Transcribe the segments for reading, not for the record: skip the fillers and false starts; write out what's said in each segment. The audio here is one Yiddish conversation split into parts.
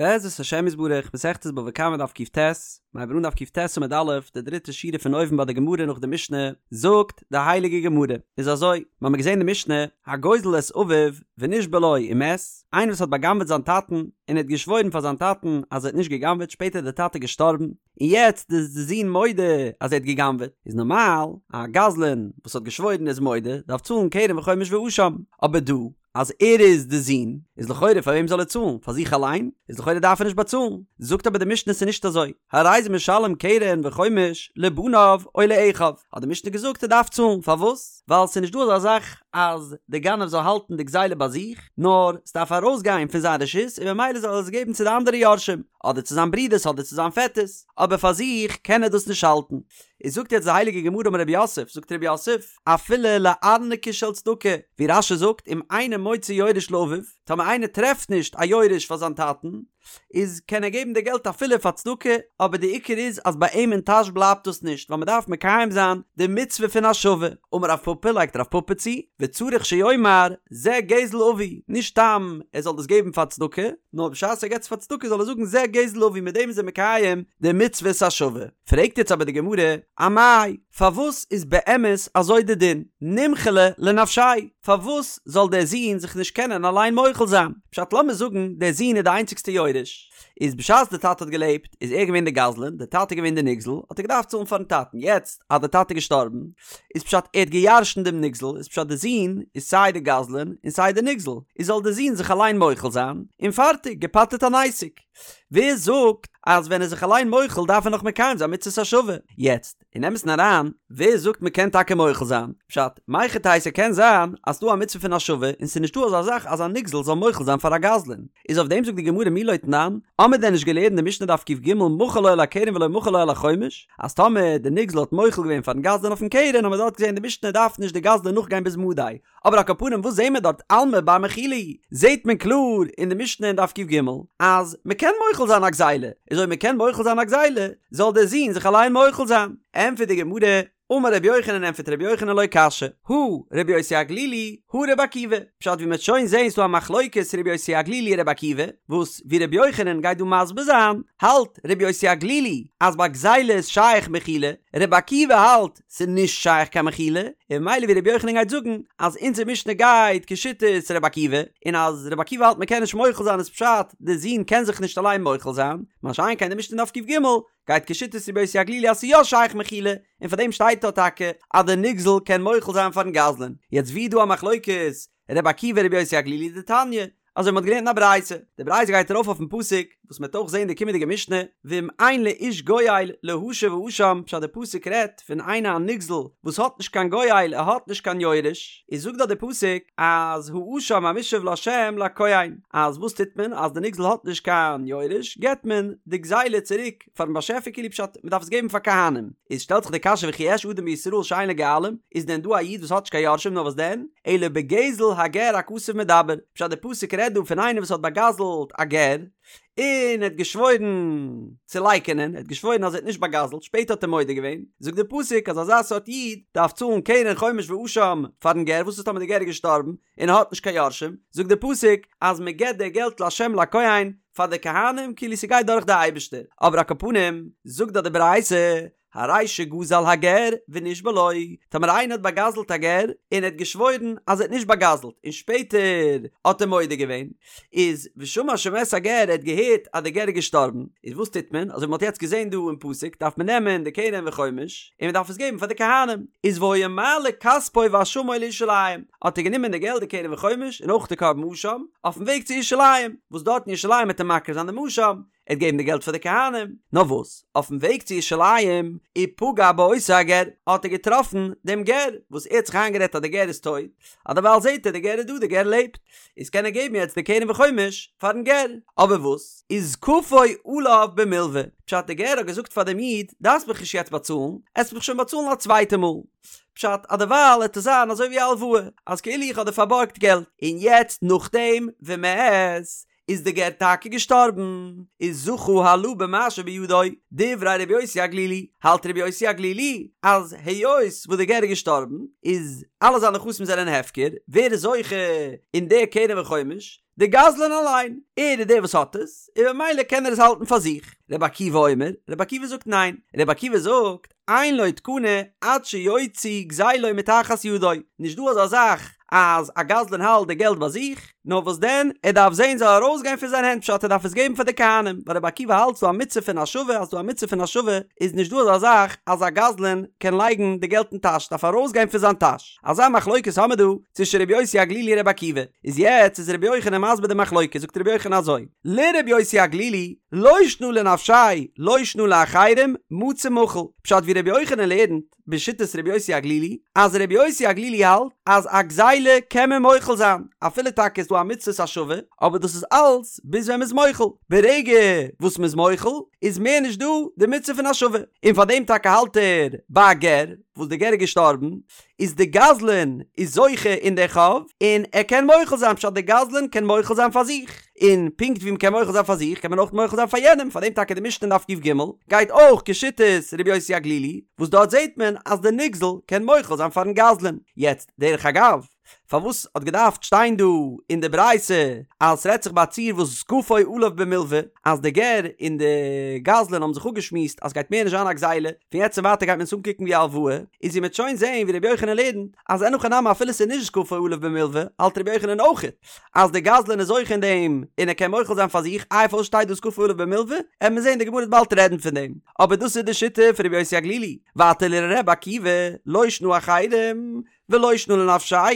בעזרת השם יתברך, מסכת בבא קמא דף קט, מ'הייבט אן דף קט עמוד א', די דריטע שורה פון אויבן ביי די גמרא נאך די משנה, זאגט די הייליגע גמרא, איז אזוי, מ'האמיר געזען די משנה, הגוזל את אביו ונשבע לו ומת, איינער וואס האט בא'גנב'עט זיין טאטן, און ער האט געשוואוירן פאר זיין טאטן אז ער האט נישט גע'גנב'עט, שפעטער איז די טאטע געשטארבן, און יעצט איז די זון מודה אז ער האט גע'גנב'עט, איז נארמאל א גזלן וואס האט געשוואוירן איז מודה, דארף צאלן קרן וחומש ואשם, אבער דא אז ער איז די זון, איז לכאורה פאר וועם זאל ער צאלן? פאר זיך אליין? איז לכאורה דארף ער נישט באצאלן. זאגט אבער די משנה ס'איז נישט אזוי, הרי זה משלם קרן וחומש לבניו או לאחיו, האט די משנה געזאגט ער דארף צאלן, פארוואס? ווייל ס'איז נישט דא אזא זאך אז די גנב זאל האלטן די גזילה ביי זיך, נאר ס'דארף ארויסגיין פון זיין רשות און ממילא זאל ער עס געבן צו די אנדערע יורשים, אדער צו זיין ברודערס אדער צו זיין פעטערס, אבער פאר זיך קען ער דאס נישט האלטן. איז זאגט יעצט די הייליגע גמרא אמר רב יוסף, זאגט רב יוסף, אפילו לארנקי של צדקה, ווי רש"י זאגט אם אינו מוצא יורש לאביו, טאמער איינער טרעפט נישט א יורש פאר זיין טאטן, איז קען ער געבן די געלט אפילו פאר צדקה, אבער די עיקר איז אז ביי אים אין טאש בלייבט דאס נישט, ווייל מען דארף מקיים זיין די מצוה פון השבה. אמר רב פפא, לייגט רב פפא צו, וצריך שיאמר זה גזל אבי, נישט סתם ער זאל דאס געבן פאר צדקה, נאר בשעת ער געבט עס פאר צדקה זאל ער זאגן זה גזל אבי, מיט דעם איז ער מקיים די מצוות השבה. פרעגט יעצט אבער די גמרא, אמאי, פארוואס איז באמת אזוי די דין? נימחליה לנפשיה, פארוואס זאל דער זון זיך נישט קענען אליין מוחל זיין? פשט לאמיר זאגן דער זון איז די איינציגסטע יורש, איז בשעת די טאטע האט געלעבט איז ער געווען די גזלן, די טאטע איז געווען די נגזל, האט ער געדארפט צאלן פארן טאטן, יעצט אז די טאטע איז געשטארבן, איז פשט ער האט געירשנט דעם נגזל, איז פשט די זון איז סיי די גזלן און סיי די נגזל, איז זאל די זון זיך אליין מוחל זיין, און פארטיג, געפטר'ט אן עסק. ווער זאגט אז ווען ער איז זיך אליין מוחל דארף ער נאך מקיים זיין מצות השבה? יעצט, אין אמת'ן אריין, ווער זאגט מ'קען טאקע מוחל זיין? פשט, מהיכי תיתי ס'קען זיין אז ס'דא א מצוה פון השבה און ס'איז נישטא אזא זאך אז א נגזל זאל מוחל זיין פאר א גזלן. איז אויף דעם זאגט די גמרא מי לא תנן, האמיר דען נישט געלערנט די משנה דף קג מחל לו על הקרן ולא מחל לו על החומש, אז טאמער די נגזל האט מוחל געווען פארן גזלן אויפן קרן האמיר דארט געזען די משנה דארף נישט די גזלן נאכגיין ביז מדי, אבער על כל פנים וואס זעהן מיר דארט אלמא בר מחילה הוא, זעהט מען קלאר אין די משנה אין דף קג אז מ'קען מוחל זיין א גזילה, איז אויב מ'קען מוחל זיין א גזילה זאל דער זון זיך אליין מוחל זיין. ענטפערט די גמרא, אמר רבי יוחנן ענטפערט רבי יוחנן לא קשיא, הא רבי יוסי הגלילי הא רבי עקיבא, פשט ווי מ'העט שוין זעהן ס'דא א מחלוקת רבי יוסי הגלילי רבי עקיבא, וואס ווי רבי יוחנן גייט דא מסביר זיין, האלט רבי יוסי הגלילי אז ביי גזילה איז שייך מחילה, רבי עקיבא האלט ס'איז נישט שייך קיין מחילה, און ממילא ווי רבי יוחנן גייט זאגן אז אונזער משנה גייט כשיטת רבי עקיבא, און אז רבי עקיבא האלט מ'קען נישט מוחל זיין איז פשט די זון קען זיך נישט אליין מוחל זיין, מה שאין כן די משנה אין דף קג גייט כשיטת רבי יוסי הגלילי אז ס'איז יא שייך מחילה, און פאר דעם שטייט דא טאקע אז די נגזל קען מוחל זיין פארן גזלן. יעצט ווי איז דא א מחלוקת רבי עקיבא רבי יוסי הגלילי דתניא, אזוי מ'האט געלערנט אין א ברייתא, די ברייתא גייט ארויף אויפן פסוק, וואס מ'וועט אויך זען די קומענדיגע משנה, ואם אין לאיש גואל להשיב האשם, פשט די פסוק רעדט פון איינער א נגזל וואס האט נישט קיין גואל ער האט נישט קיין יורש, איז זאגט דארט די פסוק אז האשם המושב לה' לכהן, אז וואס טוט מען אז די נגזל האט נישט קיין יורש, געבט מען די גזילה צוריק פארן באשעפער כאילו פשט מ'דארף עס געבן פאר כהנים, איז שטעלט זיך די קשיא וכי יש אדם בישראל שאין לו גואלים, איז דען דא א איד וואס האט נישט קיין יורשים נאר וואס דען, אלא בגזל הגר הכתוב מדבר, פשט די פסוק רעדט דא פון איינער וואס האט באגזלט א גר, און ער האט געשוואוירן צו לייקענען, ער האט געשוואוירן אז ער האט נישט באגזלט, שפעטער האט ער מודה געווען, זאגט די פסוק אז אזא סארט איד דארף צאלן קרן חומש ואשם פארן גר, וואס איז טאמער די גר איז געשטארבן און ער האט נישט קיין יורשים, זאגט די פסוק אז מען געבט די געלט להשם לכהן פאר די כהנים כאילו ס'גייט דורך די אייבערשטער, אבער על כל פנים זאגט דאך די ברייתא הרי שגזל הגר ונשבע לו, טאמער איינער האט באגזלט א גר און ער האט געשוואוירן אז ער האט נישט באגזלט און שפעטער האט ער מודה געווען, איז ושמע שמת הגר ער האט געהערט אז דער גר איז געשטארבן, איז וואס טוט מען? אזוי ווי מען האט יעצט געזען דא אין פסוק דארף מען נעמען די קרן וחומש און מען דארף עס געבן פאר די כהנים, איז והיה מעלה כספו ואשמו לירושלים, האט ער גענומען די געלט די קרן וחומש און אויך די קרבן אשם אויפן וועג צו ירושלים, וואס דארט אין ירושלים וועט ער מקריב זיין דעם אשם, ער וועט געבן די געלט פאר די כהנים, נאר וואס, אויפן וועג צו ירושלים, ופגע באותו הגר, האט ער געטראפן דעם גר, וואס ער האט זיך איינגערעדט אז דער גר איז טויט, אז דערווייל זעט ער דער גר איז דא, דער גר לעבט, איז קען ער געבן יעצט די קרן וחומש פארן גר, אבער וואס, איז כפו עליו במלוה, פשט דער גר האט געזאגט פאר דעם איד, דארפסט מיך נישט יעצט באצאלן, עסט מיך שוין באצאלן א צווייטע מאל, פשט אז דערווייל וועט עס זיין אזוי ווי א הלוואה, אז כאילו איך האב דיר פארבארגט געלט, און יעצט נאכדעם ומת, איז די גר טאקע געשטארבן, איז זכה הלה במה שבידו, דברי רבי יוסי הגלילי, האלט רבי יוסי הגלילי אז היות וואס די גר איז געשטארבן איז אלע זיינע נכסים זענען הפקר, ווער איז זוכה אין די קרן וחומש? די גזלן אליין, ער איז דער וואס האט עס, און ממילא קען ער עס האלטן פאר זיך. רבי עקיבא אומר, רבי עקיבא זאגט ניין, רבי עקיבא זאגט, אין לו תקנה עד שיוציא גזילו מתחת ידו, נישט דא אזא זאך אז א גזלן האלט די געלט ביי זיך, נאר וואס דען, ער דארף זען זאל ארויסגיין פון זיין הענט פשט ער דארף עס געבן פאר די כהנים, ווייל רבי עקיבא האלט ס'דא א מצוה פון השבה אז ס'דא א מצוה פון השבה איז נישט דא אזא זאך אז א גזלן קען לייגן די געלט אין טאש ס'דארף ארויסגיין פון זיין טאש, אזא מחלוקת האמער דא צווישן רבי יוסי הגלילי און רבי עקיבא, איז יעצט איז רבי יוחנן מסביר די מחלוקת זאגט רבי יוחנן אזוי, לרבי יוסי הגלילי לא שנא לנפשיה לא שנא לאחרים מצי מחיל, פשט ווי רבי יוחנן לערנט בשיטת רבי יוסי הגלילי, אז רבי יוסי הגלילי האלט אז א גזילה קען מען מוחל זיין, אפילו טאקע איז דא א מצוות השבה, אבער דאס איז אלץ ביז ווען מ'איז מוחל, ברגע וואס מ'איז מוחל איז מער נישט דא די מצוה פון השבה, און פאר דעם טאקע האלט ער ביי א גר וואס די גר איז געשטארבן, איז די גזלן איז זוכה אין די חוב, און ער קען מוחל זיין, פשט די גזלן קען מוחל זיין פאר זיך, און פונקט ווי מ'קען מוחל זיין פאר זיך קען מען אויך מוחל זיין פאר יענעם, פאר דעם טאקע די משנה אין דף ק"ג גייט אויך כשיטת רבי יוסי הגלילי, וואס דארט זעט מען אז די נגזל קען מוחל זיין פארן גזלן. יעצט, דרך אגב, פארוואס האט געדארפט שטיין דא אין די ברייתא אז ס'רעדט זיך ביי א ציור וואס זקפו עליו במלוה, אז די גר און די גזלן האבן זיך אפגעשמועסט אז ס'גייט מער נישט זיין א גזילה, פון יעצט און ווייטער גייט מען עס אנקוקן ווי א הלוואה, איז ווי מ'עט שוין זעהן ווי רבי יוחנן לערנט אז אין הכי נמי אפילו ס'איז נישט זקפו עליו במלוה האלט רבי יוחנן אויכעט אז די גזלן איז זוכה אין דעם און ער קען מוחל זיין פאר זיך, איי פארוואס שטייט דא זקפו עליו במלוה? עט מען זעהן די גמרא וועט באלד רעדן פון דעם, אבער דאס איז די שיטה פון רבי יוסי הגלילי, ווייטער לר' עקיבא לא שנא אחרים, ולא שנא לנפשיה,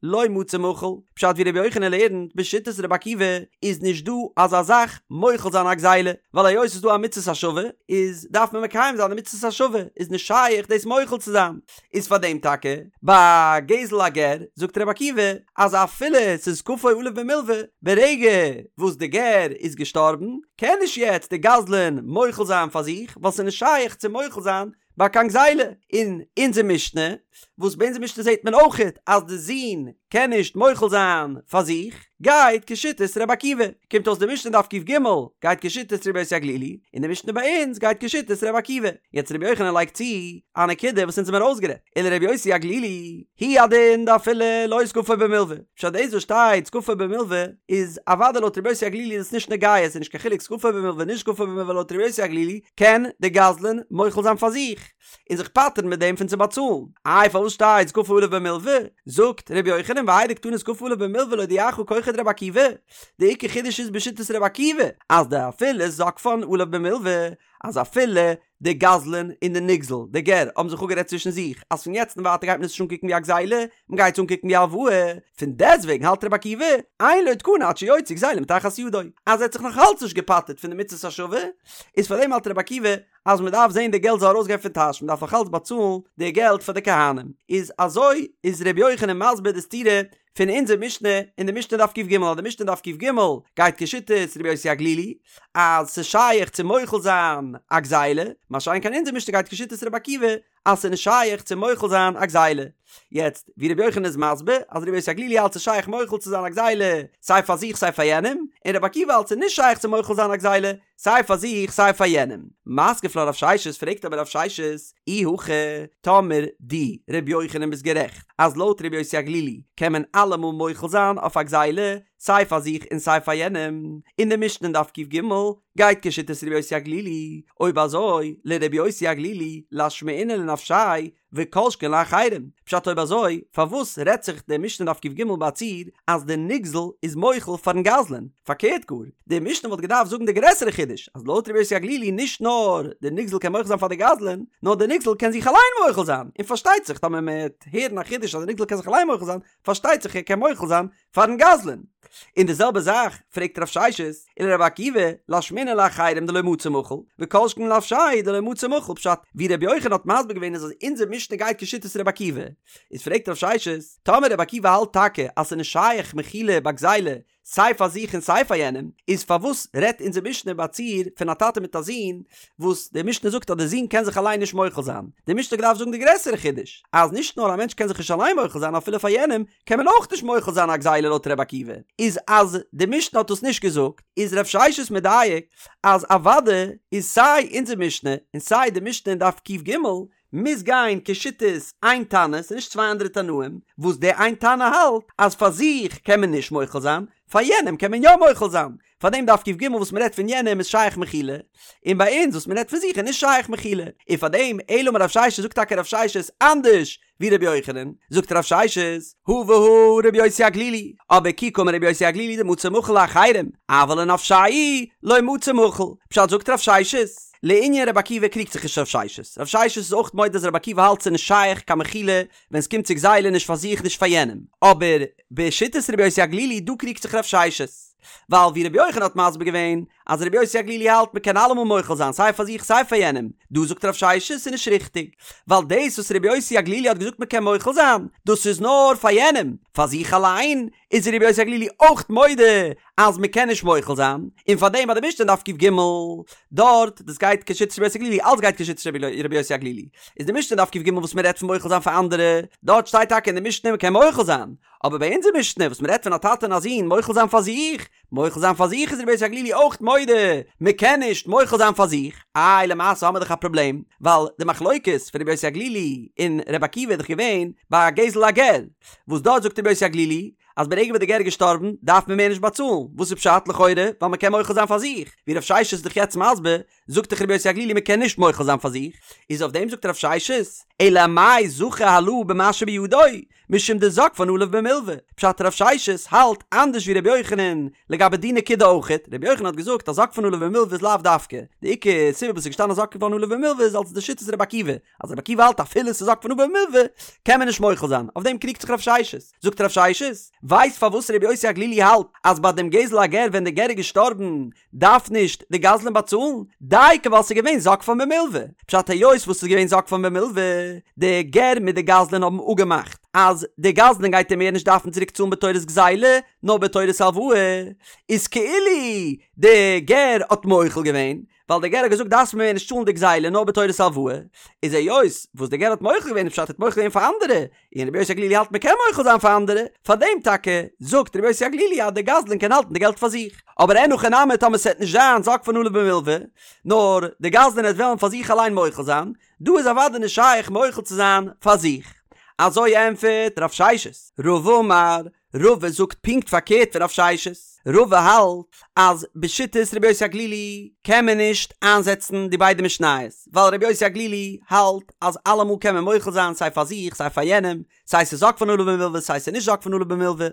לא מצי מחיל, פשט ווי רבי יוחנן לערנט בשיטת רבי עקיבא איז נישט דא אזא זאך מוחל זיין א גזילה, ווייל היות ס'איז דא א מצות השבה איז דארף מען מקיים זיין די מצות השבה, איז נישט שייך דאס מוחל צו זיין, איז פאר דעם טאקע ביי גזל הגר זאגט רבי עקיבא אז אפילו ס'איז זקפו עליו במלוה, ברגע וואס די גר איז געשטארבן קען נישט יעצט די גזלן מוחל זיין פאר זיך ווייל ס'איז נישט שייך צו מוחל זיין ביי קיין גזילה, אין אונזער משנה, וואס ביי אונזער משנה זעט מען אויכעט אז די זון קען נישט מוחל זיין פאר זיך, גייט כשיטת ר' עקיבא, קומט אויס די משנה דף ק"ג גייט כשיטת ר' יוסי הגלילי, און די משנה ביי אונז גייט כשיטת ר' עקיבא. יעצט ר' יוחנן לייגט צו א נקודה וואס אונז האבן ארויסגערעדט, ולר' יוסי הגלילי, הוא הדין דאפילו לא זקפו במלוה, פשט דאס וואס שטייט זקפו במלוה איז אוודאי לויט ר' יוסי הגלילי איז עס נישט נוגע, עס איז נישט קיין חילוק זקפו במלוה נישט זקפו במלוה לויט ר' יוסי הגלילי קען די גזלן מוחל זיין פאר זיך און זיך פטר'ן מיט דעם פון צו באצאלן. איי פארוואס שטייט זקפו עליו במלוה? זאגט ר' יוחנן והאי דקתני זקפו עליו במלוה להודיעך כחו דרבי עקיבא, די עיקר חידוש איז בשיטת רבי עקיבא אז דאפילו זקפן עליו במלוה אז אפילו די גזלן און די נגזל, די גר, האבן זיך אפגערעדט צווישן זיך אז פון יעצט און ווייטער גייט מען עס נישט אנקוקן ווי א גזילה, מען גייט עס אנקוקן ווי א הלוואה, פון דעסטוועגן האלט רבי עקיבא, אין לו תקנה עד שיוציא גזילה מתחת ידו, אז ער האט זיך נאך אלץ נישט געפטר'ט פון די מצות השבה, איז פאר דעם האלט רבי עקיבא אז מען דארף זען די געלט זאל ארויסגיין פון טאש, מען דארף נאך אלץ באצאלן די געלט פאר די כהנים. איז אזוי איז רבי יוחנן מסביר די סתירה פון אונזער משנה אין די משנה דף ק"ג אז די משנה דף ק"ג גייט כשיטת רבי יוסי הגלילי אז ס'איז שייך צו מוחל זיין א גזילה, מה שאין כן אונזער משנה גייט כשיטת רבי עקיבא אז ס'איז נישט שייך צו מוחל זיין א גזילה. יעצט ווי רבי יוחנן איז מסביר אז רבי יוסי הגלילי האלט ס'איז שייך מוחל צו זיין א גזילה סיי פאר זיך סיי פאר יענעם, און רבי עקיבא האלט ס'איז נישט שייך צו מוחל זיין א גזילה סיי פאר זיך סיי פאר יענעם. מתקיף לה רב ששת פרעגט אבער רב ששת, אי הכי, טאמער דו, ר' יוחנן ביסט גערעכט אז לויט ר' יוסי הגלילי קען מען אלעמאל מוחל זיין אויף א גזילה סיי פאר זיך און סיי פאר יענעם, און די משנה אין דף ק"ג גייט כשיטת ר' יוסי הגלילי, אויב אזוי לר' יוסי הגלילי לאשמועינן לנפשיה וכל שכן לאחרים, פשט אויב אזוי פארוואס רעדט זיך די משנה דף ק"ג ביי א ציור אז די נגזל איז מוחל פארן גזלן? פארקערט גאר, די משנה וואלט געדארפט זאגן די גרעסערע חידוש אז לויט רבי יוסי הגלילי נישט נאר די נגזל קען מוחל זיין פאר די גזלן, נאר די נגזל קען זיך אליין מוחל זיין, און פארשטייט זיך טאמער מען וועט הערן א חידוש אז די נגזל קען זיך אליין מוחל זיין, פארשטייט זיך ער קען מוחל זיין פארן גזלן. און די זעלבע זאך פרעגט רב ששת, ולרבי עקיבא, לאשמועינן לאחרים דלא מצי מחיל, וכל שכן לנפשיה דלא מצי מחיל, פשט, ווי רבי יוחנן האט מסביר געווען איז אז אונזער משנה גייט כשיטת רבי עקיבא, איז פרעגט רב ששת, טאמער רבי עקיבא האלט טאקע אז ס'איז נישט שייך מחילה ביי גזילה סיי פאר זיך און סיי פאר יענעם, איז פארוואס רעדט אונזער משנה ביי א ציור פון א טאטע מיט א זון, וואס די משנה זאגט אז די זון קען זיך אליין נישט מוחל זיין? די משנה האט געדארפט זאגן די גרעסערע חידוש, אז נישט נאר א מענטש קען זיך נישט אליין מוחל זיין אפילו פאר יענעם, קען מען אויך נישט מוחל זיין א גזילה לויט ר' עקיבא, איז אז די משנה האט דאס נישט געזאגט, איז רב ששת מדייק אז אוודאי איז סיי אונזער משנה און סיי די משנה אין דף ק"ג מוז גיין כשיטת איין תנא, ס'איז נישט צוויי אנדערע תנאים, וואס די איין תנא האלט אז פאר זיך קען מען נישט מוחל זיין, פאר יענעם קען מען יא מוחל זיין, פאר דעם דף ק"ג וואס מ'רעדט פון יענעם איז שייך מחילה, און ביי אונז וואס מ'רעדט פון זיך איז נישט שייך מחילה, און פאר דעם אלא אמר רב ששת זאגט טאקע רב ששת אנדערש ווי רבי יוחנן, זאגט רב ששת, הא והא רבי יוסי הגלילי, אבער כי קאמר רבי יוסי הגלילי דמצי מחיל לאחרים, אבל לנפשיה לא מצי מחיל, פשט זאגט רב ששת, לענין רבי עקיבא קריגט זיך נישט רב ששת, רב ששת איז אויך מודה אז רבי עקיבא האלט ס'איז נישט שייך קיין מחילה ווען ס'קומט צו גזילה נישט פאר זיך נישט פאר יענעם, אבער בשיטת רבי יוסי הגלילי דא קריגט זיך רב ששת, ווייל ווי רבי יוחנן האט מסביר געווען אז רבי יוסי הגלילי האלט מ'קען אלעמאל מוחל זיין סיי פאר זיך סיי פאר יענעם, דא זאגט רב ששת ס'איז נישט ריכטיג, ווייל דאס וואס רבי יוסי הגלילי האט געזאגט מ'קען מוחל זיין, דאס איז נאר פאר יענעם, פאר זיך אליין איז רבי יוסי הגלילי אויך מודה אז מ'קען נישט מוחל זיין, און פארדעם ביי די משנה אין דף ק"ג דארט, דאס גייט כשיטת רבי יוסי הגלילי, אלץ גייט כשיטת רבי יוסי הגלילי, איז די משנה אין דף ק"ג וואס מ'רעדט פון מוחל זיין פאר אנדערע, דארט שטייט טאקע אין די משנה מ'קען מוחל זיין, אבער ביי אונזער משנה וואס מ'רעדט פון א טאטע און א זון מוחל זיין פאר זיך, מוחל זיין פאר זיך איז רבי יוסי הגלילי אויך מודה, מ'קען נישט מוחל זיין פאר זיך, איי למעשה האמיר דאך א פראבלעם, ווייל די מחלוקת פון רבי יוסי הגלילי און רבי עקיבא איז דאך געווען ביי א גזל הגר, וואס דארט זאגט רבי יוסי הגלילי אז ברגע וואס די גר איז געשטארבן דארף מען מער נישט באצאלן, וואס איז פשט לכאורה ווייל מ'קען מוחל זיין פאר זיך, ווי רב ששת איז דאך יעצט מסביר, זאגט דאך רבי יוסי הגלילי מ'קען נישט מוחל זיין פאר זיך, איז אויף דעם זאגט רב ששת, אלא אמאי זכה הלה במה שבידו, משום דזקפן עליו במלוה, פשט רב ששת האלט אנדערש ווי רבי יוחנן לגבי די נקודה אויכעט, רבי יוחנן האט געזאגט אז זקפן עליו במלוה איז לאו דווקא, די עיקר סיבה וואס איז געשטאנען זקפן עליו במלוה איז אלס די שיטת רבי עקיבא, אז רבי עקיבא האלט אפילו ס'איז זקפן עליו במלוה קען מען נישט מוחל זיין, אויף דעם קריגט זיך רב ששת, זאגט רב ששת, ווייסט פארוואס רבי יוסי הגלילי האלט אז ביי דעם גזל הגר ווען די גר איז געשטארבן דארף נישט די גזלן באצאלן, דייקא ווייל ס'איז געווען זקפן במלוה, פשט היות וואס ס'איז געווען זקפן במלוה, די גר מיט די גזלן האבן אפגעמאכט אז די גזלן גייט אים מער נישט דארפן צוריק צאלן בתורת גזילה נאר בתורת הלוואה, איז כאילו די גר האט מוחל געווען, ווייל די גר האט געזאגט דארפסט מיר מער נישט צאלן די גזילה נאר בתורת הלוואה, איז היות וואס די גר האט מוחל געווען איז פשט ער האט מוחל געווען פאר אנדערע, און רבי יוסי הגלילי האלט מ'קען מוחל זיין פאר אנדערע, פאר דעם טאקע זאגט רבי יוסי הגלילי אז דער גזלן קען האלטן די געלט פאר זיך, אבער אין הכי נמי טאמער ס'עט נישט זיין זקפן עליו במלוה, נאר די גזלן עט וועלן פאר זיך אליין מוחל זיין, דא איז אוודאי נישט שייך מוחל צו זיין פאר זיך. אזוי ענטפערט רב ששת. רבא אמר, רבא זאגט פונקט פארקערט פון רב ששת, רבא האלט אז בשיטת רבי יוסי הגלילי קען מען נישט איינזעצן די ביידע משניות, ווייל רבי יוסי הגלילי האלט אז אלעמאל קען מען מוחל זיין סיי פאר זיך סיי פאר יענעם, סיי ס'איז זקפן עליו במלוה סיי ס'איז נישט זקפן עליו במלוה,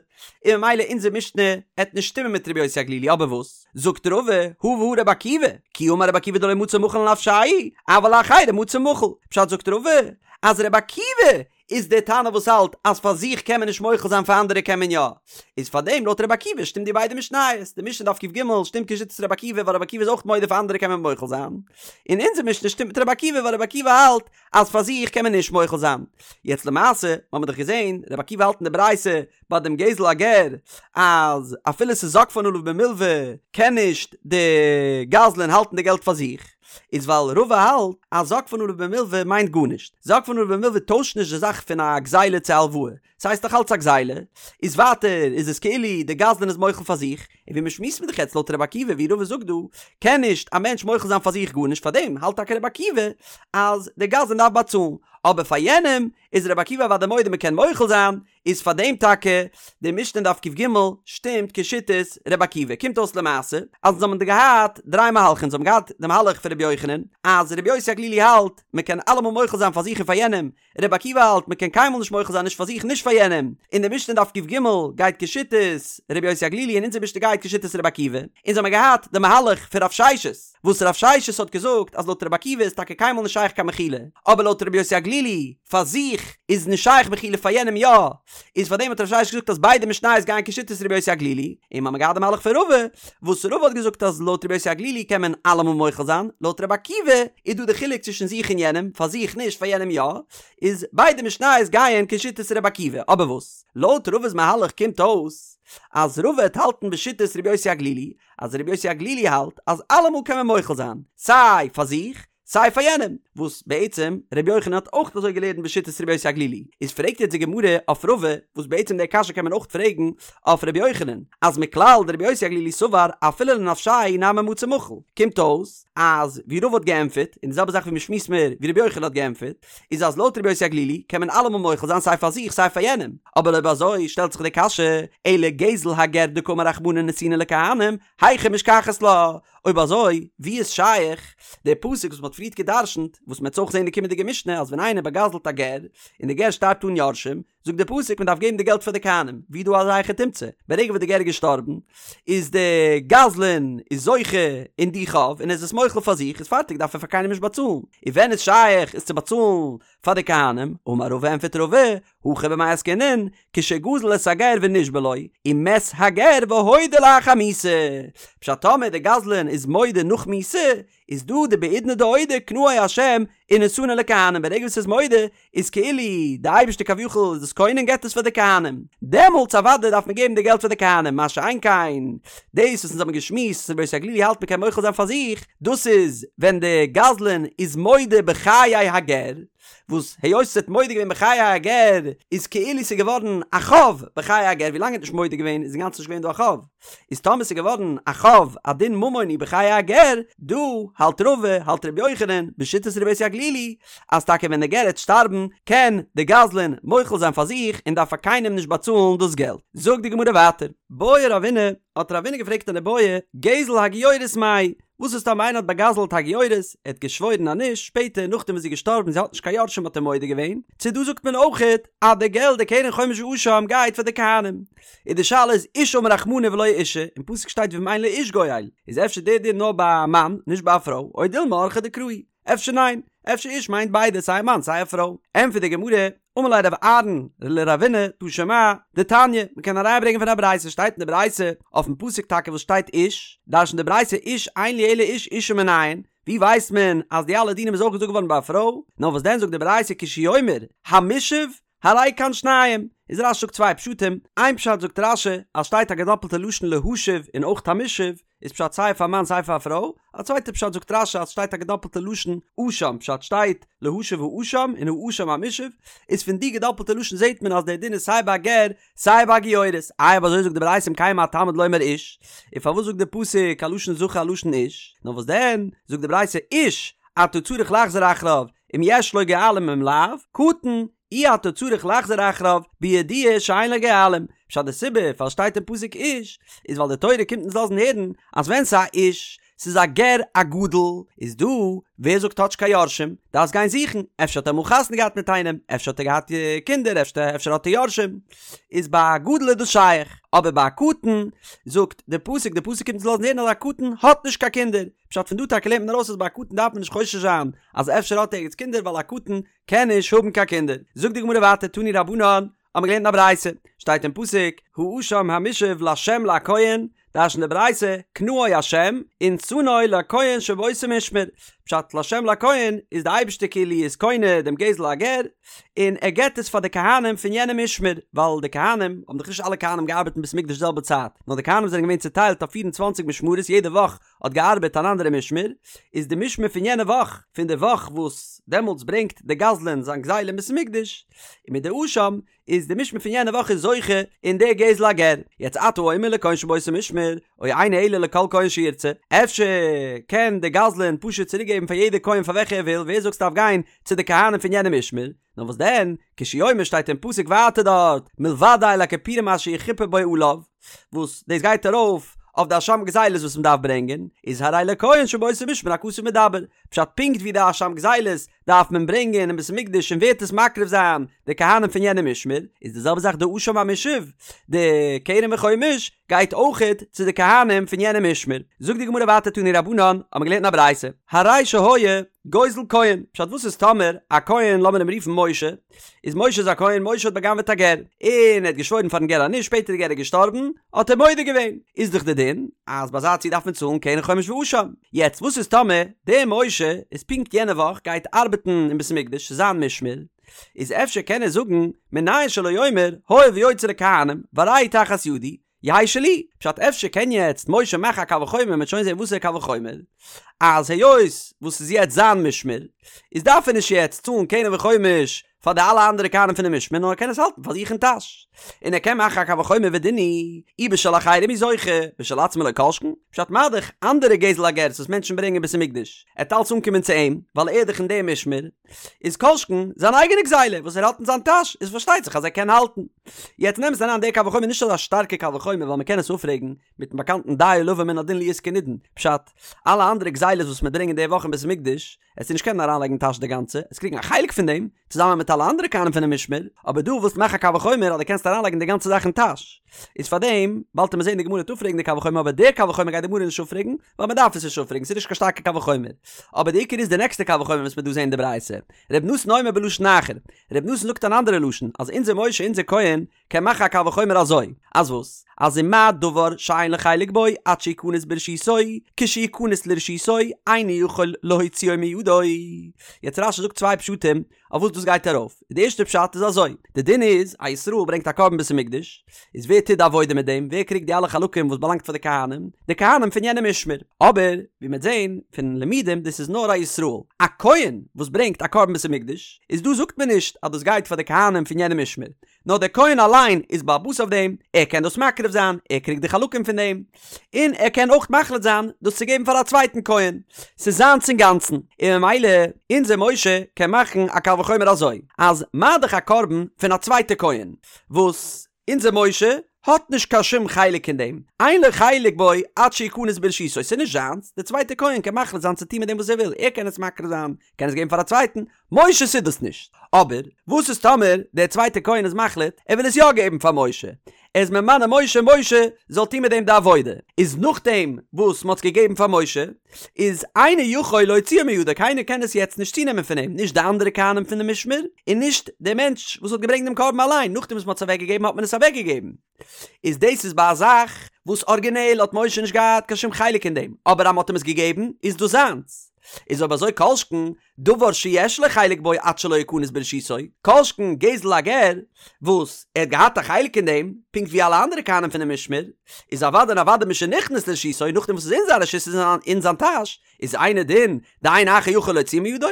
און ממילא אונזער משנה עט נישט שטימען מיט רבי יוסי הגלילי אבער וואס זאגט רבא הא והא רבי עקיבא, כי אמר רבי עקיבא דלא מצי מחיל לנפשיה, אבל לאחרים מצי מחיל, פשט זאגט רבא אז רבי עקיבא איז דער תנא וואס האלט אז פאר זיך קען מען נישט מוחל זיין פאר אנדערע קען מען יא, איז פאר דעם לויט רבי עקיבא שטימט די ביידע משניות, די משנה דף ק"ג שטימט כשיטת רבי עקיבא ווייל רבי עקיבא איז אויך מודה פאר אנדערע קען מען מוחל זיין, און אונזער משנה שטימט מיט רבי עקיבא ווייל רבי עקיבא האלט אז פאר זיך קען מען נישט מוחל זיין. יעצט למעשה האבן מיר דאך געזען רבי עקיבא האלט אין די ברייתא ביי דעם גזל הגר אז אפילו ס'איז זקפן עליו במלוה קען נישט די גזלן האלטן די געלט פאר זיך, איז ווייל רבא האלט אז זקפן עליו במלוה מיינט גארנישט, זקפן עליו במלוה טוישט נישט די זאך פון א גזילה צו א הלוואה, ס'הייסט דאך אלץ א גזילה, איז ווייטער איז עס כאילו די גזלן איז מוחל פאר זיך, און ווי מ'שמועסט מיר דאך יעצט לויט רבי עקיבא ווי רבא זאגט דא, קען נישט א מענטש מוחל זיין פאר זיך גארנישט פארדעם האלט טאקע רבי עקיבא אז די גזלן דארף באצאלן, אבער פאר יענעם איז רבי עקיבא אוודאי מודה מ'קען מוחל זיין, איז פאר דעם טאקע די משנה אין דף ק"ג שטימט כשיטת ר' עקיבא, קומט אויס למעשה אז אונז האבן דא געהאט דריי מהלכים, אונז האבן געהאט די מהלך פון ר' יוחנן אז ר' יוסי הגלילי האלט מען קען אלעמאל מוחל זיין פאר זיך און פאר יענעם, ר' עקיבא האלט מען קען קיינמאל נישט מוחל זיין נישט פאר זיך נישט פאר יענעם, און די משנה אין דף ק"ג גייט כשיטת ר' יוסי הגלילי און אונזער משנה גייט כשיטת ר' עקיבא, אונז האבן געהאט די מהלך פון רב ששת. וואס רב ששת האט געזאגט אז לויט רבי עקיבא איז טאקע קיינמאל נישט שייך קיין מחילה, אבער לויט רבי יוסי הגלילי פאר זיך איז נישט שייך מחילה פאר יענעם יא, איז פאר דעם האט רב ששת געזאגט אז ביידע משניות גייען כשיטת רבי יוסי הגלילי, און מ'האמיר געהאט די מהלך פון רבא, וואס רבא האט געזאגט אז לויט רבי יוסי הגלילי קען מען אלעמאל מוחל זיין, לויט רבי עקיבא איז דא די חילוק צווישן זיך און יענעם, פאר זיך נישט פאר יענעם יא, איז ביידע משניות גייען כשיטת רבי עקיבא, אבער וואס לויט רבא'ס מהלך קומט אויס אז רבא וועט האלטן בשיטת רבי יוסי הגלילי, אז רבי יוסי הגלילי האלט אז אלעמאל קען מען מוחל זיין, סיי פאר זיך, סיי פאר יענעם, וואס בעצם ר' יוחנן האט אויך אזוי געלערנט בשיטת ר' יוסי הגלילי, איז פרעגט יעצט די גמרא אויף רבא, וואס בעצם די קשיא קען מען אויך פרעגן אויף ר' יוחנן, אז מכלל דר' יוסי הגלילי סבר אפילו לנפשיה נמי מצי מחיל, קומט אויס אז ווי רבא האט געענטפערט, און די זעלבע זאך ווי מ'שמועסט מער ווי ר' יוחנן האט געענטפערט, איז אז לויט ר' יוסי הגלילי קען מען אלעמאל מוחל זיין סיי פאר זיך סיי פאר יענעם, אבער אויב אזוי שטעלט זיך די קשיא, אלא גזל הגר דקאמר רחמנא נתונה לכהנים, היכי משכחת לה? אויב אזוי ווי איז שייך די פסוק וואס מ'האט פריערט גע'דרש'נט, וואס מ'עט אויך זען אין די קומענדיגע משנה אז ווען איינער באגזל'ט א גר, און די גר שטארבט אן יורשים, זאגט די פסוק מען דארף געבן די געלט פאר די כהנים, ווי דא אזא היכי תמצא, ברגע וואס די גר איז געשטארבן, איז די גזלן איז זוכה אין די חוב און איז עס מוחל פאר זיך, איז פארטיג דארף ער פאר קיינעם נישט באצאלן, און ווען איז שייך עס צו באצאלן פאר די כהנים, אמר רבא ענפערט רבא, הכא במאי עסקינן, כשגזל את הגר ונשבע לו, ומת הגר והודה לאחר מיתה, פשט טאמער די גזלן איז מודה נאך מיתה, איז דא דבעידנא דאודי קנאו השם ונתנו לכהנים ברגע וואס ער איז מודה איז כאילו די אייבערשטער כביכול איז דאס קונה און געבט עס פאר די כהנים דעמאלטס אוודאי דארף מען געבן די געלט פאר די כהנים מה שאין כן דאס וואס אונז האבן געשמועסט אז רבי יוסי הגלילי האלט מען קען מוחל זיין פאר זיך דאס איז ווען די גזלן איז מודה בחיי הגר וואס היות ער האט מודה געווען בחיי הגר איז כאילו ס'איז געווארן א חוב בחיי הגר ווילאנג ער האט נישט מודה געווען איז אינגאנצן נישט געווען דא א חוב. איז טאמער ס'איז געווארן א חוב א דין ממוני בחיי הגר, דא האלט רבא, האלט ר' יוחנן, בשיטת רבי יוסי הגלילי, אז טאקע ווען די גר העט שטארבן קען די גזלן מוחל זיין פאר זיך און דארף פאר קיינעם נישט באצאלן דאס געלט. זאגט די גמרא ווייטער. בעי רבינא, האט רבינא געפרעגט אן איבעיא, גזל הגיורת מאי, וואס איז טאמער איינער האט באגזלט א גיורת, ער האט געשוואוירן אז נישט, שפעטער נאכדעם וואס זי איז געשטארבן זי האט נישט קיין יורשים האט ער מודה געווען, צו דא זאגט מען אויכעט אז די געלט די קרן חומש ואשם גייט פאר די כהנים. און די שאלה איז איש אמר רחמנא ולא אשה, אין פסוק שטייט ואם אין לאיש גואל, איז אפשר דער דין נאר ביי א מאן, נישט ביי א פרוי, או דילמא אורחיה דקרא הוא, אפשר ניין, אפשר איש מיינט ביידע סיי א מאן סיי א פרוי. ענטפערט די גמרא, אמר ליה רב אהרן לרבינא תא שמע, דתניא, מ'קען א ראיה ברענגען פון א ברייתא, שטייט אין די ברייתא, אויפן פסוק טאקע וואס שטייט איש, דרש'נט די ברייתא איש אין לי אלא איש אשה מנין, ווי ווייסט מען אז די אלע דינים איז אויך געזאגט געווארן ביי א פרוי, נאר וואס דען זאגט די ברייתא כשהוא אומר המושב הרי כאן שניים, איז רש"י זאגט צוויי פשטים, איין פשט זאגט רש"י אז שטייט א געדאפלטע לשון להשיב און אויך המושב, איז פשט סיי פאר מאן סיי פאר א פרוי, א צווייטע פשט זאגט רש"י אז שטייט א געדאפלטע לשון אשם פשט שטייט להשיב האשם און האשם המושב, איז פון די געדאפלטע לשון זעט מען אז דער דין איז סיי ביי א גר סיי ביי א גיורת, איי אויב אזוי זאגט די ברייתא אם כן מה תלמוד לומר איש, און פארוואס זאגט די פסוק א לשון זכר א לשון איש, נאר וואס דען זאגט די ברייתא איש אתה צריך לחזור אחריו אם יש לו גואלים אם לאו, קטן אי אתה צריך לחזור אחריו בידוע שאין לו גואלים, פשט די סיבה פארוואס שטייט אין פסוק איש, איז ווייל די תורה קומט אונז לאזן הערן אז ווען ס'איז א איש, ס'איז א גר א גדול, איז דא ווער זאגט האט נישט קיין יורשים, דארפסט גיין זוכן, אפשר האט ער אמאל חתונה געהאט מיט איינעם, אפשר האט ער געהאט קינדער, אפשר האט ער יורשים, איז ביי א גדול איז דאס שייך, אבער ביי א קטן, זאגט די פסוק, די פסוק קומט אונז לאזן הערן אז א קטן האט נישט קיין קינדער, פשט פון דא טאקע לערנט מען ארויס אז ביי א קטן דארף מען נישט חושש זיין אז אפשר האט ער ערגעץ קינדער ווייל א קטן קען נישט האבן קיין קינדער. זאגט די גמרא ווייטער תנו רבנן, האבן מיר געלערנט אין א ברייתא, שטייט אין פסוק, האשם המושב לה' לכהן, דרש'נט די ברייתא, קנאו ה' ונתנו לכהן שבאותו משמר, פשט לה' לכהן איז די אייבערשטער כאילו איז קונה דעם גזל הגר, און ער געבט עס פאר די כהנים פון יענעם משמר, ווייל די כהנים, האבן דאך נישט אלע כהנים געארבעט אין בית המקדש די זעלבע צייט, נאר די כהנים זענען געווען צוטיילט אויף פיר און צוואנציג משמרות יעדע וואך האט געארבעט אן אנדערע משמר, איז די משמר פון יענע וואך, פון די וואך וואס דעמאלטס ברענגט די גזלן זיין גזילה אין בית המקדש, און מיט די אשם, איז די משמר פון יענע וואך איז זוכה אין די גזל הגר. יעצט אתה אומר לכהן שבאותו משמר, או אינו אלא לכל כהן שירצה, אפשר קען די גזלן פשוט צוריק געבן פאר יעדע כהן פאר וועלכע ער וויל, ווער זאגט ס'דארף גיין צו די כהנים פון יענע משמר? נאר וואס דען, כשהוא אומר שטייט אין פסוק ווייטער דארט, מלבד איל הכפורים אשר יכפר בו עליו, וואס דאס גייט ארויף אויף די אשם גזילות וואס מען דארף ברענגען, איז הרי לכהן שבאותו משמר הכתוב מדבר, פשט פונקט ווי די אשם גזילות דארף מען ברענגען אין בית המקדש און ווער וועט עס מקריב זיין די כהנים פון יענע משמר, איז די זעלבע זאך די אשם המושב, די קרן וחומש גייט אויכעט צו די כהנים פון יענע משמר. זאגט די גמרא ווייטער תנו רבנן, האבן מיר געלערנט אין א ברייתא, הרי שהיה גוזל כהן, פשט וואס איז טאמער א כהן לאמיר אים רופן משה, איז משה איז א כהן, משה האט בא'גנב'עט א גר, און ער האט געשוואוירן פארן גר אז נישט, שפעטער די גר איז געשטארבן, האט ער מודה געווען, איז דאך די דין אז ביי אזא ציור דארף מען צאלן קרן חומש ואשם, יעצט וואס איז טאמער דער משה איז פונקט יענע וואך גייט ארבעטן אין בית המקדש ס'איז זיין משמר, איז אפשר קען ער זאגן מנין שלא יאמר הואיל ויוצא לכהנים והרי הוא תחת ידי, יהא שלי, פשט אפשר קען יעצט משה מאכן א קל וחומר מ'וועט שוין זען וואסערע קל וחומר, אז היות וואס ס'איז יעצט זיין משמר, איז דארף ער נישט יעצט צאלן קרן וחומש פאר די אלע אנדערע כהנים פונעם משמר נאר ער קען עס האלטן פאר זיך אין טאש, און ער קען מאכן א קל וחומר ודין הוא, אי בשל אחרים הוא זוכה, בשל עצמו לא כל שכן, פשט מה דאך אנדערע גזל הגר'ס וואס מענטשן ברענגען אין בית המקדש, עט אלץ אנקומען צו אים, ווייל ער איז דאך אין דעם משמר, איז כל שכן זיין אייגענע גזילה וואס ער האט אין זיין טאש, איז פארשטייט זיך אז ער קען האלטן. יעצט אין אמת'ן אריין דער קל וחומר נישט אזא שטארקע קל וחומר ווייל מ'קען עס אפפרעגן מיטן באקאנטן דיו לבא מן הדין להיות כנידון, פשט, אלע אנדערע גזילות וואס מ'ברענגט אין די וואך אין בית המקדש, עסטו נישט קענען אריינלייגן אין טאש די גאנצע, עסט קריגן א חלק פון דעם, צוזאמען מיט אלע אנדערע כהנים פונעם משמר, אבער דא ווילסטו מאכן א קל וחומר אז דו קענסט אריינלייגן די גאנצע זאך אין טאש, איז פארדעם, באלד עמיר זען די גמרא וועט אפפרעגן די קל וחומר אבער דער קל וחומר גייט די גמרא נישט אפפרעגן, ווייל מען דארף עס נישט אפפרעגן, ס'איז נישט קיין שטארקע קל וחומר. אבער די עיקר איז די נעקסטע קל וחומר וואס מ'וועט דא זען אין די ברייתא. ר' נתן אומר בלשון אחר, ר' נתן זאגט אן אנדערע לשון, אז אונזער משה אונזער כהן קען מאכן א קל וחומר אזוי, אז וואס? אז ומה דבר שאין לו חלק בו עד שיכנס ברשותו, כשיכנס לרשותו אינו יכול להוציאו מידו. יעצט רש"י זאגט צוויי פשטים אויף וואס דאס גייט ארויף. די ערשטע פשט איז אזוי, די דין איז, א ישראל ברענגט א קרבן בית המקדש, איז ווער טוט די עבודה מיט דעם? ווער קריגט די אלע חלקים וואס באלאנגט פאר די כהנים? די כהנים פון יענע משמר. אבער, ווי מ'וועט זען פון לימודים, דאס איז נאר א ישראל. א כהן וואס ברענגט א קרבן בית המקדש, איז דא זאגט מען נישט אז דאס גייט פאר די כהנים פון יענע משמר, נאר דער כהן אליין איז בעל הבית אויף דעם, ער קען דאס מקריב זיין, ער קריגט די חלקים פון דעם, און ער קען אויך מחליט זיין דאס צו געבן פאר א צווייטן כהן, ס'איז זיינס אינגאנצן, און ממילא אונזער משה קען מאכן א קל וחומר אזוי, אז מה דאך א קרבן פון א צווייטע כהן, וואס אונזער משה האט נישט קיין שום חלק אין דעם, אין לו חלק בו עד שיכנס ברשותו, ס'איז נישט זיינס, דער צווייטער כהן קען מחליט זיין צו טון מיט דעם וואס ער וויל, ער קען עס מקריב זיין, קען עס געבן פאר א צווייטן, משה ס'איז דאס נישט. אבער וואס איז טאמער דער צווייטער כהן איז מחליט ער וויל עס יא געבן פאר משה, ער איז ממנה משה משה זאל טון מיט דעם די עבודה, איז נאכדעם וואס מ'האט עס געגעבן פאר משה, איז אינו יכול להוציאו מידו קיינער קען עס יעצט נישט צונעמען פון אים, נישט די אנדערע כהנים פון די משמר, און נישט דער מענטש וואס האט געברענגט דעם קרבן אליין, נאכדעם וואס מ'האט עס אוועקגעגעבן האט מען עס אוועקגעגעבן. איז דאס איז ביי א זאך וואס ארגינעל האט משה נישט געהאט קיין שום חלק אין דעם, אבער אז מ'האט אים עס געגעבן איז דאס זיינס. איז אויב אזוי כל שכן דבר שיש לו חלק בו עד שלא יכנס ברשותו, כל שכן גזל הגר וואס ער האט געהאט א חלק אין דעם, פונקט ווי אלע אנדערע כהנים פונעם משמר, איז אוודאי און אוודאי משנכנס לרשותו, נאכדעם וואס ס'איז אין זיין רשות איז אין זיין טאש, איז אינו דין דאין אחר יכול להוציאו מידו,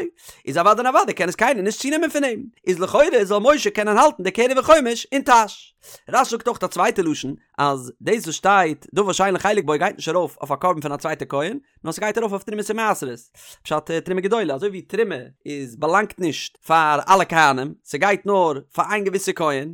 איז אוודאי און אוודאי קען עס קיינער נישט צונעמען פון אים, איז לכאורה זאל משה קענען האלטן די קרן וחומש אין טאש. רש"י זאגט אויך א צווייטע לשון, אז דאס וואס שטייט דבר שאין לו חלק בו גייט נישט ארויף אויף א קרבן פון א צווייטע כהן, נאר ס'גייט ארויף אויף תרומות ומעשרות, פשט תרומה גדולה, אזוי ווי תרומה איז באלאנגט נישט פאר אלע כהנים, ס'גייט נאר פאר איין געוויסע כהן,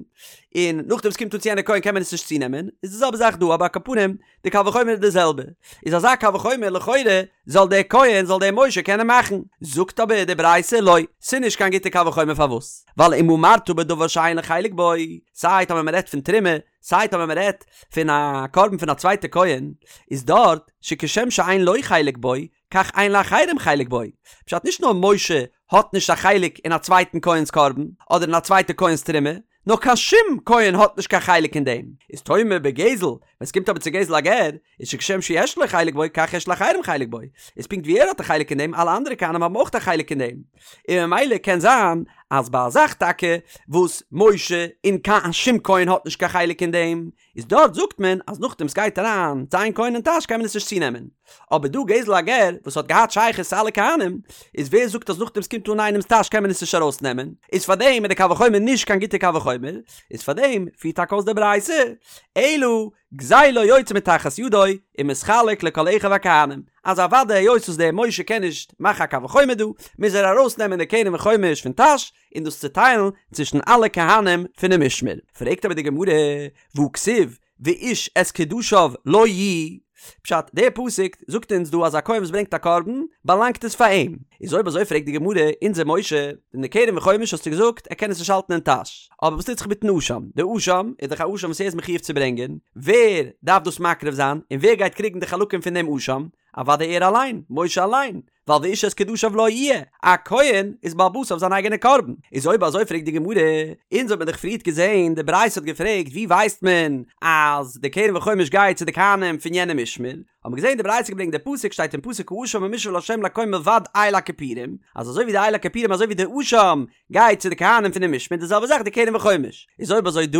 און נאכדעם ס'קומט אן צו יענע כהן קען מען עס נישט צונעמען, איז די זעלבע זאך דא, אבער על כל פנים, די קל וחומר איז די זעלבע, איז אזא קל וחומר לכאורה זאל דער כהן זאל דער משה קענען מאכן, זאגט אבער די ברייתא לא, ס'נישט קיין גוטע קל וחומר פארוואס? ווייל אם אמרת בדבר שאין לו חלק בו, סיי טאמער מ'רעדט פון תרומה, סיי טאמער מ'רעדט פון א קרבן פון א צווייטע כהן, איז דארט שכשם שאין לו חלק בו, כך אין לאחרים חלק בו. פשט נישט נאר משה האט נישט א חלק אין א צווייטן כהן'ס קרבן, אדער אין א צווייטע כהן'ס תרומה, נאר קיין שום כהן האט נישט קיין חלק אין דעם. איז תאמר בגזל, ווען ס'קומט אבער צו גזל הגר, איז שכשם שיש לו חלק בו, כך יש לאחרים חלק בו. איז פונקט ווי ער האט א חלק אין דעם, אלע אנדערע כהנים האבן אויך א חלק אין דעם. און ממילא קען זיין אז ביי א זאך טאקע וואס משה און קיין שום כהן האט נישט קיין חלק אין דעם, איז דארט זאגט מען אז נאכדעם סגייט אריין צו איין כהן אין טאש קען מען עס נישט צונעמען. אבער דא גזל הגר וואס האט געהאט שייכות צו אלע כהנים, איז ווער זאגט אז נאכדעם סקומט אן איינעמס טאש קען מען עס נישט ארויסנעמען, איז פארדעם איז די קל וחומר נישט קיין גוטע קל וחומר, איז פארדעם פירט טאקע אויס די ברייתא, אלא גזילו יוצא מתחת ידו ומתחלק לכל אחיו הכהנים, אז אוודאי היות וואס דער משה קען נישט מאכן א קל וחומר דא, מוז ער ארויסנעמען די קרן וחומש פון טאש און דאס צוטיילן צווישן אלע כהנים פונעם משמר. פרעגט אבער די גמרא, והכתיב ואיש את קדשיו לו יהיו, פשט, דער פסוק זאגט אונז דא אז א כהן וואס ברענגט א קרבן, באלאנגט עס פאר אים. איז אויב אזוי פרעגט די גמרא, אונזער משה, אין די קרן וחומש האסטו געזאגט ער קען עס נישט האלטן אין טאש, אבער וואס טוט זיך מיטן אשם? די אשם איז דאך א אשם וואס ער איז מחויב צו ברענגען, ווער דארף דאס מקריב זיין, און ווער גייט קריגן די חלקים פון דעם אשם? אוודאי ער אליין, משה אליין. ווייל ואיש את קדשיו לו יהיה, א כהן איז בעל הבית אויף זיין אייגענע קרבן, איז אויב אזוי פרעגט די גמרא, אונז האט מען דאך פריערט געזען, די ברייתא האט געפרעגט ווי ווייסט מען אז די קרן וחומש גייט צו די כהנים פון יענע משמר, האט מען געזען די ברייתא געברענגט די פסוק שטייט אין פסוק האשם המושב לה' לכהן מלבד איל הכפורים, אז אזוי ווי די איל הכפורים אזוי ווי די אשם גייט צו די כהנים פון די משמר די זעלבע זאך די קרן וחומש, איז אויב אזוי דא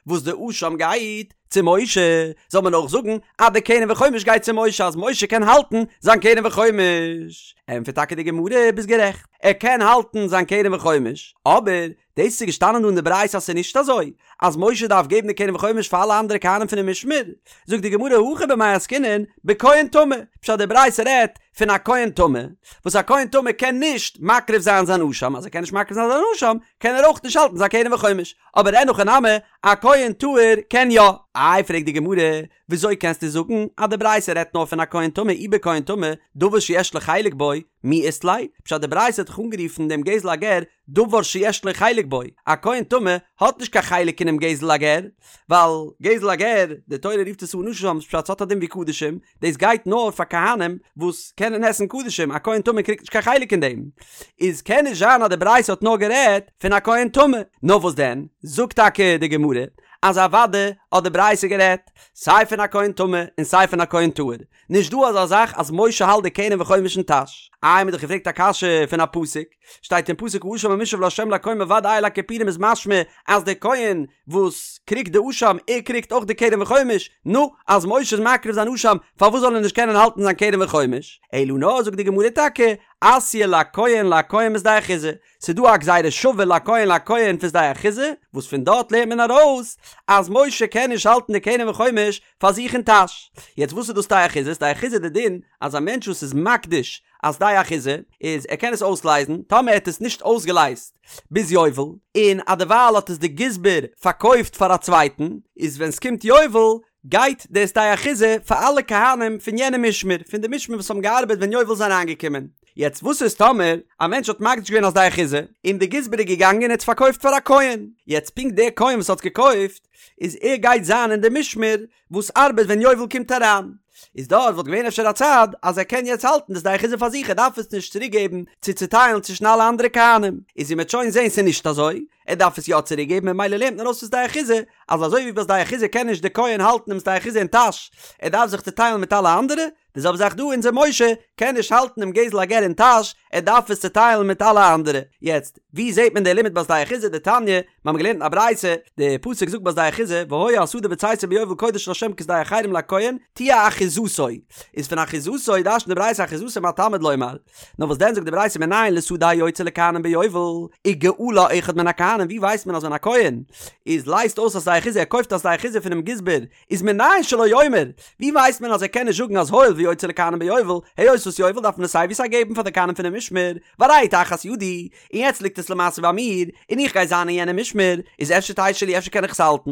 וואס די אשם גייט צו משה זאל מען אויך זאגן אז די קרן וחומש גייט צו משה אז משה קען האלטן זיין קרן וחומש, ענטפערט טאקע די גמרא ביסט גערעכט ער קען האלטן זיין קרן וחומש אבער דאס איז געשטאנען דא אין די ברייתא אז ס'איז נישט אזוי אז משה דארף געבן די קרן וחומש פאר אלע אנדערע כהנים פונעם משמר, זאגט די גמרא הכא במאי עסקינן בכהן טמא, פשט די ברייתא רעדט פון א כהן טמא, וואס א כהן טמא קען נישט מקריב זיין זיין אשם, אז ער קען נישט מקריב זיין זיין אשם קען ער אויך נישט האלטן זיין קרן וחומש, אבער אין הכי נמי א כהן טהור קען יא. איי פרעגט די גמרא, וויאזוי קענסטו זאגן אז די ברייתא רעדט נאר פון א כהן טמא אי בכהן טמא דבר שיש לו חלק בו מי אית ליה, פשט די ברייתא האט דאך אנגערופן דעם גזל הגר דבר שיש לו חלק בו, א כהן טמא האט נישט קיין חלק אינעם גזל הגר, ווייל גזל הגר, די תורה רופט עס אן אשם, פשט ס'האט א דין ווי קדשים, דאס גייט נאר פאר כהנים וואס קענען עסן קדשים, א כהן טמא קריגט נישט קיין חלק אין דעם, איז קען נישט זיין אז די ברייתא האט נאר גערעדט פון א כהן טמא, נאר וואס דען, זאגט טאקע די גמרא, אז אוודאי האט די ברייתא גערעדט סיי פון א כהן טמא און סיי פון א כהן טהור, נישט דא אזא זאך אז משה האלט די קרן וחומש אין טאש. איי מ'האט דאך געפרעגט א קשיא פון א פסוק, שטייט אין פסוק האשם המושב לה' לכהן מלבד איל הכפורים איז משמע אז דער כהן וואס קריגט די אשם ער קריגט אויך די קרן וחומש, נו, אז משה איז מקריב זיין אשם פארוואס זאל ער נישט קענען האלטן זיין קרן וחומש? אלא נאר זאגט די גמרא טאקע אתיא לכהן לכהן משדה אחוזה, ס'איז דא א גזירה שווה לכהן לכהן פון שדה אחוזה, וואס פון דארט לערנט מען ארויס אז משה קען נישט האלטן די קרן וחומש פאר זיך אין טאש. יעצט וואס איז דאס שדה אחוזה? שדה אחוזה איז די דין אז א מענטש וואס איז מקדיש א שדה אחוזה איז ער קען עס אויסלייזן, טאמער ער האט עס נישט אויסגעלייזט ביז יובל, און אדערווייל האט עס די גזבר פארקויפט פאר א צווייטן, איז ווען ס'קומט יובל גייט די שדה אחוזה פאר אלע כהנים פון יענע משמר, פון די משמר וואס האבן געארבעט ווען יובל איז אריינגעקומען. יעצט וואס איז טאמער א מענטש האט מקדיש געווען א שדה אחוזה, און די גזבר איז געגאנגען און האט עס פארקויפט פאר א כהן, יעצט פונקט דער כהן וואס האט עס געקויפט, איז ער גייט זיין אין די משמר וואס ארבעט ווען יובל קומט אריין, איז דארט וואלט געווען אפשר א צד אז ער קען יעצט האלטן די שדה אחוזה פאר זיך ער דארף עס נישט צוריק געבן צו צוטיילן צווישן אלע אנדערע כהנים, איז ווי מ'עט שוין זען ס'איז נישט אזוי, ער דארף עס יא צוריק געבן ממילא לערנט מען ארויס פון שדה אחוזה אז אזוי ווי ביי שדה אחוזה קען נישט די כהן האלטן דעם שדה אחוזה אין טאש ער דארף זיך צוטיילן מיט אלע אנדערע, די זעלבע זאך דא אונזער משה קען נישט האלטן דעם גזל הגר אין טאש ער דארף עס צוטיילן מיט אלע אנדערע. יעצט ווי זעט מען די לימוד ביי שדה אחוזה דתניא, מיר האבן געלערנט אין א ברייתא, די פסוק זאגט ביי שדה אחוזה והיה השדה בצאתו ביובל קודש לה' כשדה החרם לכהן תהיה אחוזתו, איז פון אחוזתו דרש'נט די ברייתא אחוזתו מה תלמוד לומר, נאר וואס דען זאגט די ברייתא מנין לשדה היוצאה לכהנים ביובל וגאלה אחד מן הכהנים ווי ווייסט מען אז ווען א כהן איז לייזט אויס א שדה אחוזה ער קויפט א שדה אחוזה פונעם גזבר איז מנין שלא יאמר ווי ווייסט מען אז ער קען נישט זאגן אז הואיל ויוצאה לכהנים ביובל היות וואס יובל דארף מען עס סיי ווי סיי געבן פאר די כהנים פונעם משמר והרי היא תחת ידי און יעצט ליגט עס למעשה ביי מיר און איך גיי זיין אין יענעם משמר איז אפשר תהא שלי אפשר קען איך עס האלטן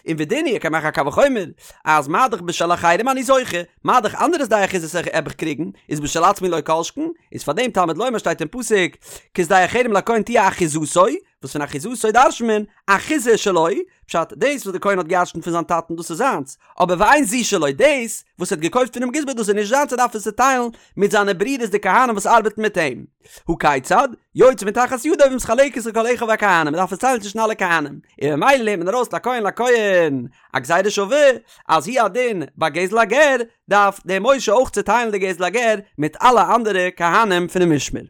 און ודין הוא ער קען מאכן א קל וחומר אז מה דאך בשל אחרים אני זוכה מה דאך אנדערע שדה אחוזות וועל איך קריגן איז בשל עצמי לא כל שכן איז פאר דעם תלמוד לומר שטייט אין פסוק כשדה החרם לכהן תהיה אחוזתו וואס פון אחוזתו דרש'נט מען אחוזה שלו, פשט, דאס וואס די כהן האט געירשנט פון זיין טאטן דאס איז זיינס, אבער ואין זו שלו, דאס וואס ער האט געקויפט פונעם גזבר דאס איז נישט זיינס ער דארף עס צוטיילן מיט זיינע ברידערס די כהנים וואס ארבעטן מיט אים. הא כיצד? יוצאה מתחת ידו ומתחלקת לכל אחיו הכהנים, מען דארף עס טיילן צווישן אלע כהנים, און ממילא לערנט מען ארויס לכהן לכהן א גזירה שווה, אז הוא הדין ביי גזל הגר דארף דער משה אויך צוטיילן די גזל הגר מיט אלע אנדערע כהנים פונעם משמר.